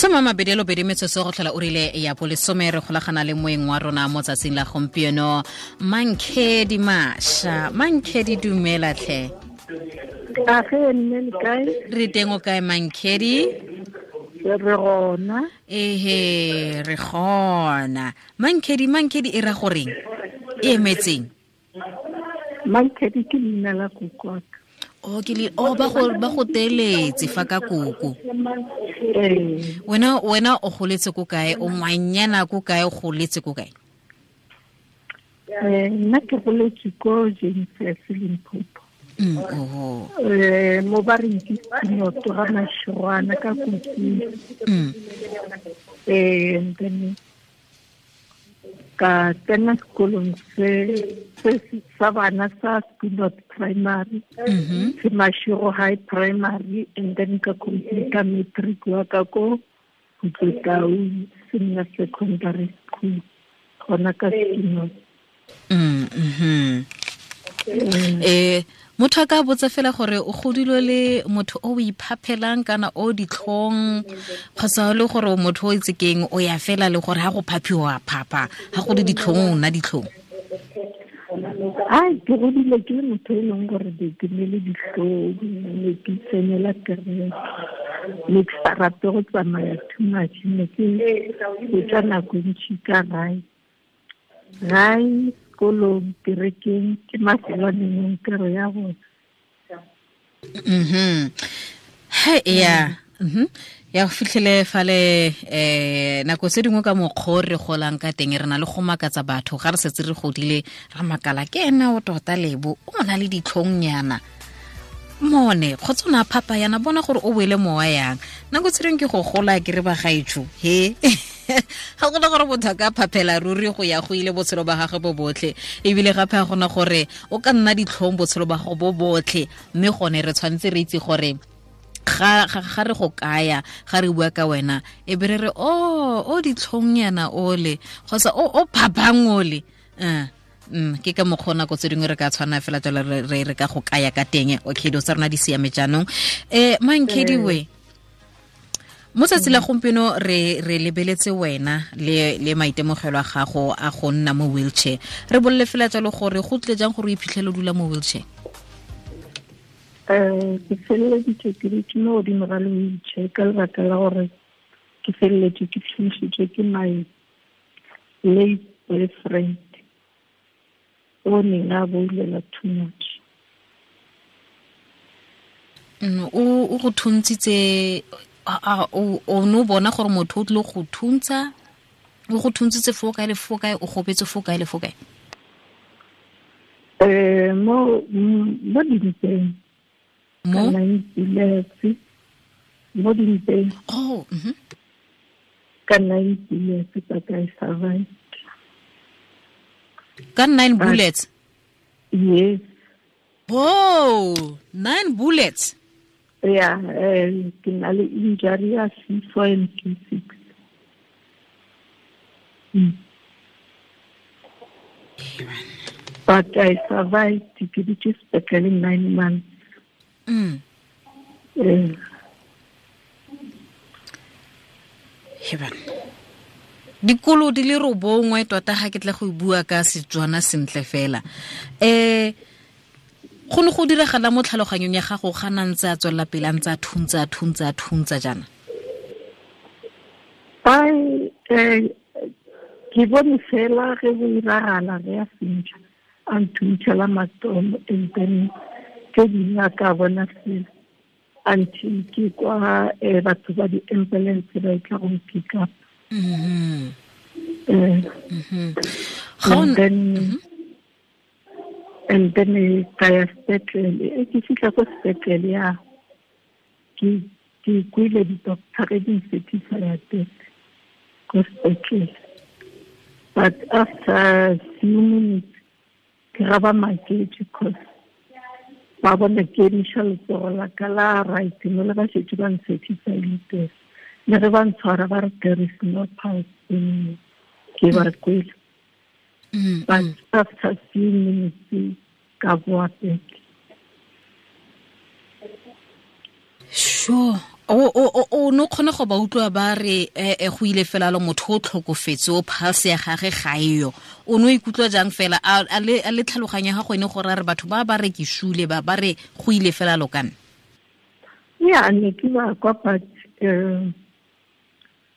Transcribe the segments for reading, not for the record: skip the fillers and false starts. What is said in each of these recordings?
Soma mabedi lo bedi metsotso go tlhola o rile ya bolesome, re golagana le moeng wa rona mo tsatsing la gompieno, Mankhedi Masha. Mankhedi, dumela tlhe. Age nne, le kae? Re teng, o kae, Mankhedi? Re gona. Ehe, re gona. Mankhedi, Mankhedi e ra goreng, e emetseng? Mankhedi ke leina la kokoaka. O ke le o ba go teletse fa ka koko. Ee. Wena o goletse ko kae? O ngwanyana ko kae? O goletse ko kae? Nna ke goletse ko James Limpopo. Oh. Mo ba reng ke Sinoto ga Mashirwana ka Kotsing. And then ka tsena sekolong se sa bana sa Spinot Primary, se Mashiro High Primary, and then ka complete matric wa ka ko Khutlotau Senior Secondary School, gona ka Spinot. Motho a ka botsa fela gore o godile le motho o iphaphelang kana o ditlhong, kgotsa le gore motho o itse keng, o ya fela le gore ha go phaphiwa phapha, ha go le ditlhong o nna ditlhong? Ai, ke godile ke le motho e leng gore ke ne le ditlhong, ne ke tsenela kereke, ne ke sa rate go tsamaya too much, ne ke fetsa nako e ntšhi ka gae, gae, sekolong, kerekeng, ke mafelo a nengwe kere ya gona. He ya ya go fitlhele fale nako tse dingwe ka mokgwa re golang ka teng, re na le go makatsa batho ga re setse re godile, ra makala ke ena o tota lebo o na le ditlhongnyana mone kgotsa o ne a phapa yana, bona gore o boele mowa yang. Nako tse dingwe ke go gola ke re bagaetsho, he ga gona gore motho a ka phaphela ruri go ya go ile botshelo ba gagwe bo botlhe, ebile gape ga gona gore o ka nna ditlhong botshelo ba gago bo botlhe. Mme gone re tshwanetse re itse gore ga re go kaya, ga re bua ka wena, e be re re o ditlhong yana ole kgotsa o phapang ole. Ke ka mokgwa nako tse dingwe re ka tshwana fela jalo re ka go kaya ka teng. Okay, dilo tsa rona di siame jaanong. Mankhediwe, mo tsatsi la gompieno re lebeletse wena le maitemogelo a gago a go nna mo wheelchair. Re bolele fela jalo gore go tle jang gore o iphitlhele o dula mo wheelchair? Ke feleleditse ke dutse mo godimo ga le wheelchair ka lebaka la gore ke feleletse ke thuntšhitswe ke my late boyfriend o neng a boulela too much. O go thuntshitse, o ne o bona gore motho o tlile go thuntsa, o go thuntshitse fo kae le fo kae? O gobetse fo kae le fo kae? Mo dimpeng. Mo? Nine bullets mo dimpeng. Oh. Ka nine bullets, but I survived. Ka nine bullets? Yes. Oh, nine bullets. Yeah, ke na le injury ya C4 and C6. But I survived. Ke dutse sepetlele 9 months. Heban, dikolo di le 9 tota, ga ke tla go bua ka Setswana sentle fela. Go ne go diragala mo tlhaloganyong ya gago ga na ntse a tswelela pele, a ntse a thuntsa, a thuntsa, a thuntsa jaana? Ai, ke bone fela ge go iragala ge a fentšha, a nthuntšhela matomo, and then tse dingwe a ka bona fela until ke kwa batho ba di-ambulance ba e tla go pick up. And then ka ya sepetlele. Ke fitlha ko sepetlele ya ke kwile di-doctor ge di ncertifya death ko sepetlele, but after few minutes ke ga ba maketse cause ba bona ke emiša letsogo la ka la right mo le ba šetse ba ncertifyile death, le ge ba ntshwara ba re there is no pulse anymore, ke ba kwele. But after few minutes ka boa back. Sure. O no kgone go ba utlwa ba re go ile fela lo motho o tlhokofetse o pulse ya gagwe ga eyo. O no ikutlwa jang fela a le tlhaloganya ga go ene gore re batho ba ba re ke shule ba ba re go ile fela lo kana. Ya ne ke ba kwa but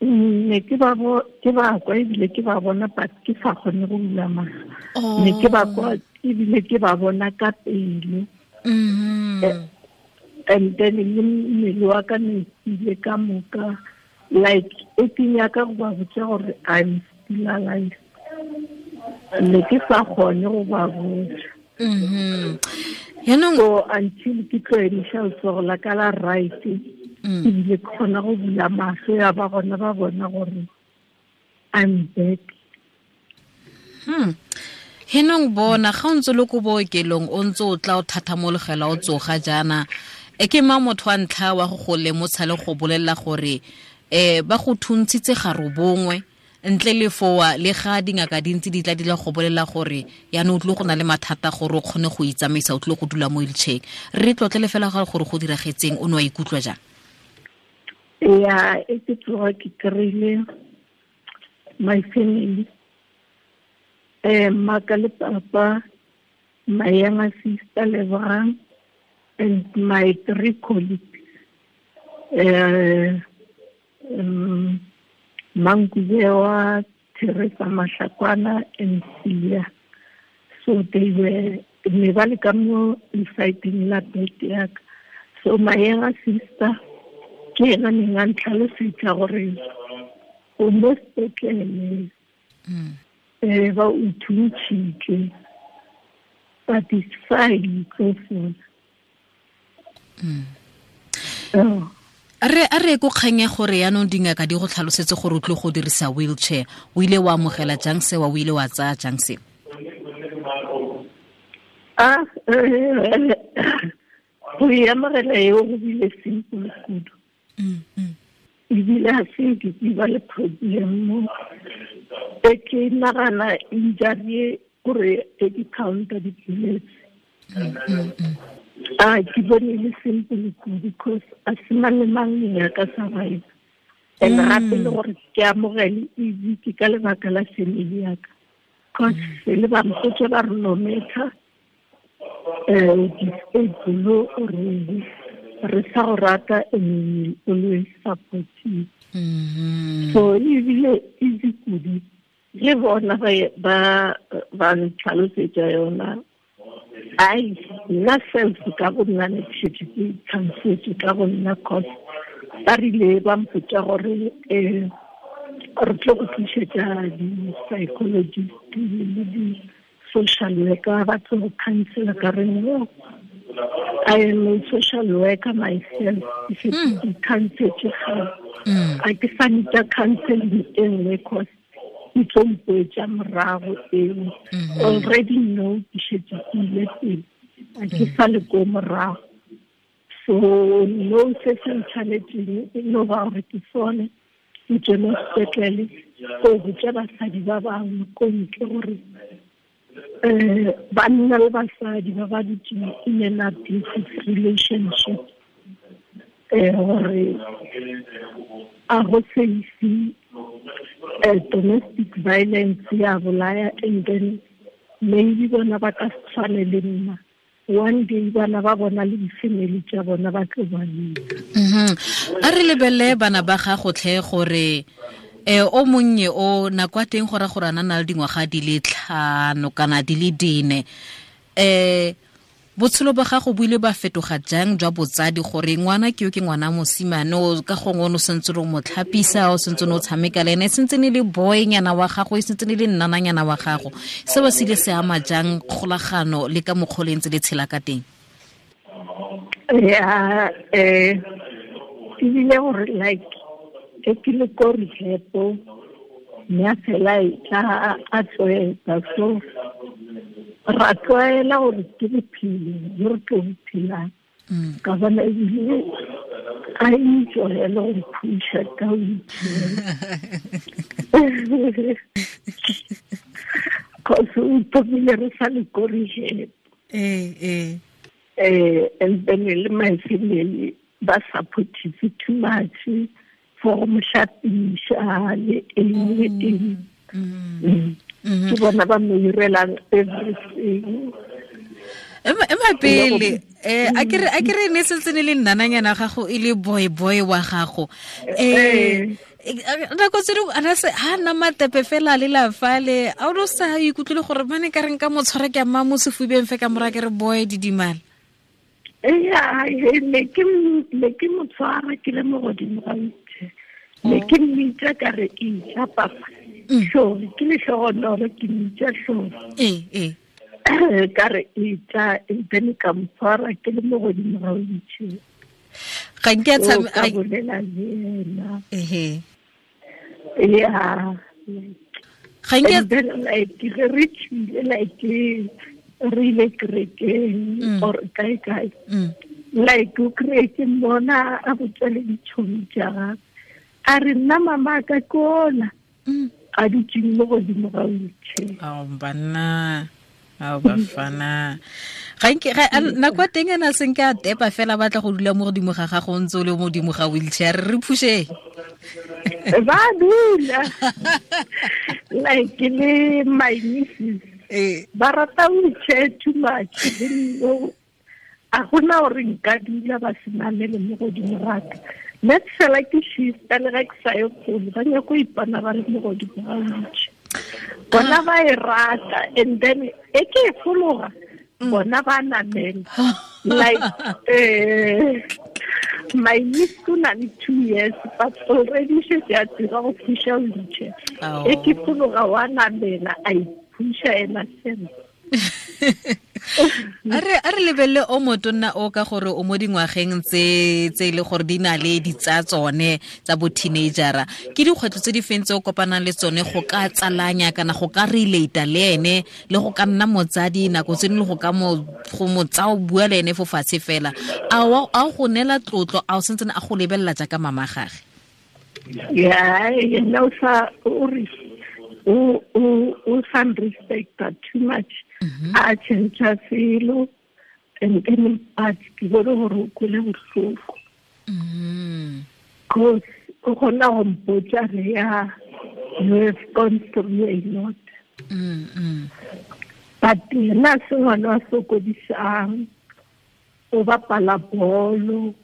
ne ke ba kwa ebile ke ba bona but ke sa kgone go bula matlho. Ne ke ba kwa ebile ke ba bona ka pele. And then le mmele wa ka ne ile ka moka like e ke nyaka go ba botsa gore I'm still alive. Ne ke sa kgone go ba botsa. Yaanong so until ke tlo emiša letsogo la ka la right ebile ke kgona go bula mahlo ya ba gona ba bona gore I'm back. Henong bona ga o ntse le ko bookelong o ntse o tla o thathamologela o tsoga jaana e ke mang motho wa ntlha wa go lemotsha le go bolelela gore ba go thuntshitse ga robongwe ntle le foa le ga dingaka dintsi di tla di la go bolela gore yaanong o tlile go na le mathata gore o kgone go itsamaisa o tlile go dula mo wheelchair. Re tlotlele fela gore go diragetseng o ne wa ikutlwa jang? Ya e ke tsoga ke kry-ile my family, maka le papa, my younger sister Lebogang, and my three colleagues, Mankubewa, Teresa Mashakwana, and Celia. So they were ne ba le ka mo lesaeteng la bed ya ka. So my younger sister ke ena neng a ntlhalosetsa gore o mo sepetlele ba o thuntšhitše, but it's fine, tlo fola. A re ko kgang ya gore yaanong dingaka di go tlhalosetse gore o tlile go dirisa wheelchair, o ile wa amogela jang sewa, o ile wa tsaya jang seo? Go e amogela eo go bile simple kudu. Ebile ga se nke ke ba le problem mo e ke nagana injury gore e di counter di-bullets. Ke bone le simple kudu because a se mang le mang ya ka survive. And gape le gore ke amogele easy ke ka lebaka la family ya ka, cause le ba mpotse ba re no matter disable or re sa go rata and we always support you. So ebile easy kudu le bona ba ntlhalosetsa yona. Ai nna self ka go nna ne ke šetše ke itlhalosetse ka go nna, cause ba rile ba mpotsa gore re tlo go tlišetša di-psychologist le di-social worker ba tlo go counsela. Ka re no, I am a social worker myself. Ke šetše ke counsetse gale, a ke sa nita counseling e nngwe cause e tlo mpoetša morago eo. Already no, ke šetše ke ile pele, a ke sa le ko morago. So no, se se ntshwanetseng e no ba gore ke sone ke tswe mo sepetlele ko botša basadi ba bangwe ko ntle gore banna le basadi ba ba dutseng in an abusive relationship, gore a go safe, domestic violence ya bolaya, and then maybe bona ba ka se tshwane le nna. One day bana ba bona le di-family tša bona ba tlo ba leka. A re lebelele bana ba gago tlhe gore o monnye o nako ya teng gore gore a na le dingwaga di le 5 kana di le 4, botshelo ba gago bo ile ba fetoga jang jwa botsadi gore ngwana ke yo ke ngwana mosimane o ka gongwe o ne o sentse o mo tlhapisa, o sentse o tshameka le ene, e sentse ne le boynyana wa gago, e sentse ne le nnananyana wa gago, seo se ile se ama jang kgolagano le ka mokgwa o le ntse le tshela ka teng? Ya, ebile gore like e ke le ko rehab mme a fela e tla a tlwaetsa, so ra tlwaela gore ke bophelo jo re tlo bo phelang. Ka bona ebile a enjoya le go phusha ka wheelchair. Cause o thomile re sa le ko rehab. And then le my family Ba supportive too much for go mo hlapiša le eng le eng. Ke bona ba mo irelang everything. Ema pele, a ke re ne sentse ne le nnananyana gago, e le boy boy wa gago, nako tse dingwe ana se ha nna matepe fela le la fale, a o sa ikutlwile gore mane ka reng ka mo tshwara ke amma mo sefubeng fe ka mora ke re, "Boy, didimala"? Ya, ne ke mo tshwara ke le mo godimo ga wheelchair, ne ke mmitsa ka re, "Ija papa." Hlori ke lehlogonolo, ke mmitsa Hlori. ee ee Ka re, "Ija," and then ka mo tshwara ke le mo godimo ga wheelchair. Ga nke a So, ka bolela le ena. Ya. Ga nke And then like ge re tšwile, like re ile kerekeng or kae kae, like o kry ke mmona a botsa le ditšhomi tša gagwe, a re, "Nna mama ka kola a dutseng mo godimo ga wheelchair." Ao banna, ao bafana, ga nke nako ya teng ena senke a tepa fela, batla go dula mo godimo ga gago o ntse o le mo godimo ga wheelchair, re phushe. Ba dula like le my nieces ba rata wheelchair too much. Le a gona gore nka dula ba se namele mo godimo gaka. Nna ke fela ke shifta, le ga ke sa ye kgole, ba nyako ipona ba le mo godimo ga wheelchair. Bona ba e rata, and then e ke e fologa, bona ba namela. Like my niece o na le 2 years, but already šetse a tseba go phusha wheelchair. E ke fologa, wa namela, a iphusha ena fela. A re lebelele o motonna o ka gore o mo dingwageng tse e le gore di na le ditsa tsone tsa bo teenagera. Ke dikgwetlho tse di feng tse o kopanang le tsone go ka tsalanya kana go ka relata le ene, le go ka nna motsadi nako tse dingwe, le go ka mo go mo tsa o bua le ene fo fatshe fela? A o go neela tlotlo? A o sentsene a go lebelela jaaka mama gage? Ya, yena o sa o re o sa respecta too much, a change selo, and then but ke bone gore o kwele bohloko, cause o kgona go mpotsa re, "Ya, you have gone through a lot." But yena se ngwana wa sokodisang, o bapala bolo.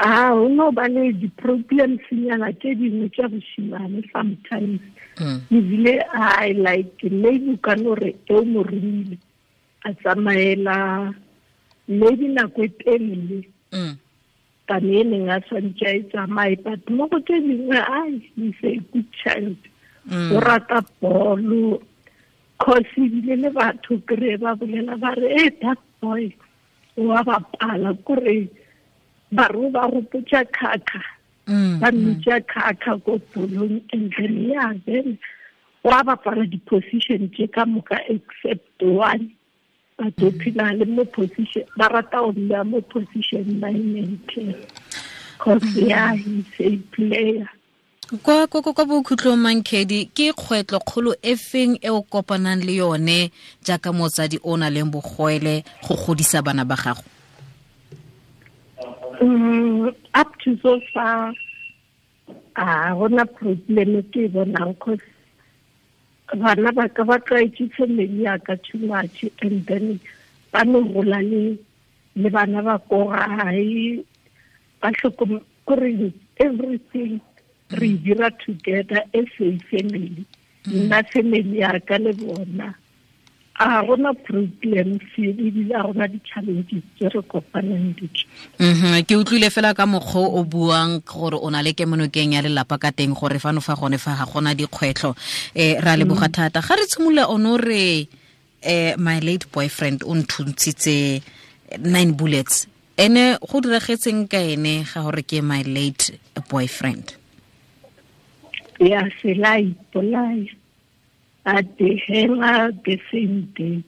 A o no ba le di-problems nyana tse dingwe tša bošimane sometimes. Ebile I like maybe o ka no re e o mo romile a tsamaela maybe nako e telele than e neng a tshwanetse a e tsamaye, but mo go tse dingwe, ai, he's a good child. O rata bolo, cause ebile le batho kry ba bolela ba re, "E, that boy wa bapala," kore ba re ba gopotsa Khakha. Ba mmitša Khakha ko bolong. And then yeah, then wa bapala di-position tše ka moka except one, but o phela le mo position, ba rata go mmea mo position 9 and 10, cause yeah, he's a player. Kwa bokhutlong, Mankedi, ke kgwetlho kgolo e feng e o kopanang le yone jaaka motsadi o na leng bogwele go godisa bana ba gago? Up to so far a gona problem ke e bonang, cause bana ba ka ba tlwaetse family ya ka too much, and then ba no gola le bana ba ko gae, ba tlhokom kore everything re e dira together as a family, nna family ya ka le bona. A gona problem ebile a gona di-challenges tse re kopanang le tsone. Ke utlwile fela ka mokgwa o buang gore o na le kemonokeng ya lelapa ka teng, gore fano fa gone fa ga gona dikgwetlho. Ra leboga thata. Ga re tshimolola ono re my late boyfriend o nthuntshitse nine bullets. Ene go diragetseng ka ene ga gore ke my late boyfriend? Ya, sela ipolaya at the hela the same day.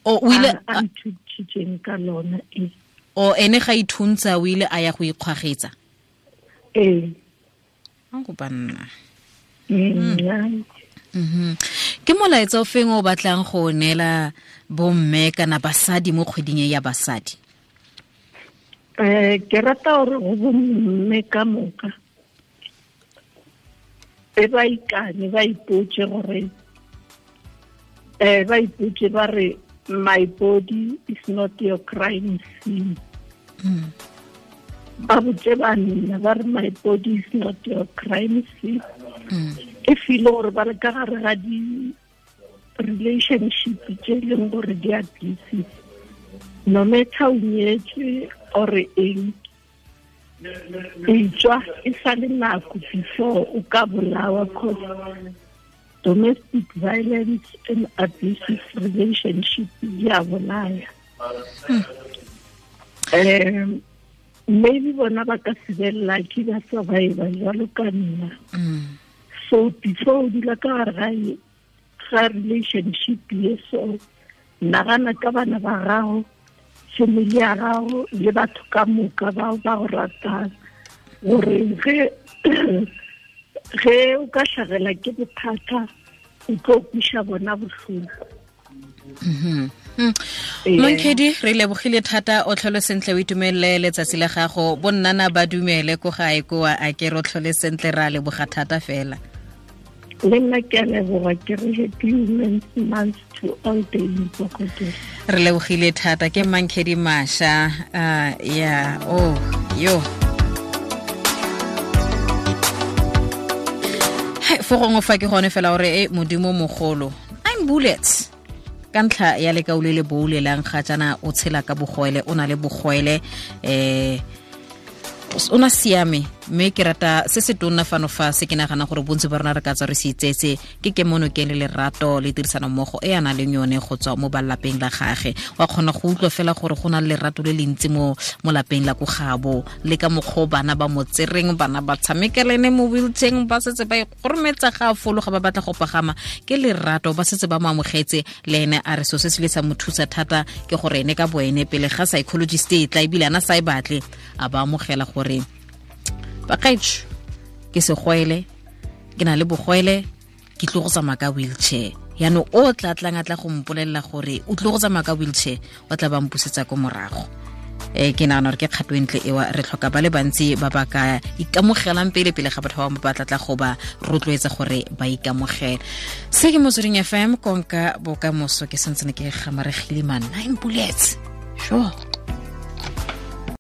O ile a nthuntshitseng ka lona e. O ene ga ithuntsa, o ile a ya go ikgwagetsa? Ee. Go banna. Ke molaetsa o feng o batlang go neela bomme kana basadi mo kgweding e ya basadi? Ke rata gore go bomme ka moka e ba ikane, ba ipotse gore ba ipotse ba re my body is not your crime scene. Ba botse banna ba re my body is not your crime scene. E feel gore ba le ka gare ga di relationship tse e leng gore di abusive, no matter o nyetswe or eng, e tswa e sa le nako before o ka bolawa, cause domestic violence and abusive relationship di a bolaya. Maybe bona ba ka se be lucky ba survive jwalo ka nna. So before o dula ka gare ga relationship ye, so nagana ka bana ba gago, family ya gago le batho ka moka bao ba go ratang, gore ge o ka hlagela ke bothata o tlo kwiša bona bohloko. Monkedi, re lebogile thata, o tlhole sentle, o itumelele letsatsi la gago. Bonnana ba dumele ko gae koa, a ke re o tlhole sentle, ra leboga thata fela. Le nna ke a leboga, ke re happy Women's Month to all the Imbokodo. Re lebogile thata, ke Mankedi Masha. Ya, oh yo fo gongwe fa ke gone fela gore e modimo mogolo, 9 bullets ka ntlha ya lekau le le boulelang ga jaana, o tshela ka bogwele, o na le bogwele, o na siame. Mme ke rata se se tonna fano fa se ke nagana gore bontsi ba rona re ka tswa re se itsetse ke kemonokeng le lerato le tirisano mmogo e a nang le yone go tswa mo balapeng la gage. Wa kgona go utlwa fela gore go na le lerato le le ntsi mo lapeng la ko gabo, le ka mokgwa o bana ba mo tsereng, bana ba tshamekelene mo wheelchair, ba setse ba ikgorometsa ga a fologa, ba batla go pagama, ke lerato, ba setse ba mo amogetse. Le ene a re so se se le sa mo thusa thata ke gore ene ka boene pele ga psychologist e tla ebile ana sa e batle, a ba amogela gore bakaetsho ke segwele, ke na le bogwele, ke tlo go tsamaya ka wheelchair. Yaanong o tla tlang a tla go mpolelela gore o tlo go tsamaya ka wheelchair, o tla ba mpusetsa ko morago. Ke nagana gore ke kgato e ntle ewa, re tlhoka ba le bantsi ba ba ka ikamogelang pele pele ga batho ba bangwe ba tla tla go ba rotloetsa gore ba ikamogele. Se ke Motsweding FM, konka bokamoso. Ke santsene ke gamaregile, man, 9 bullets, sure.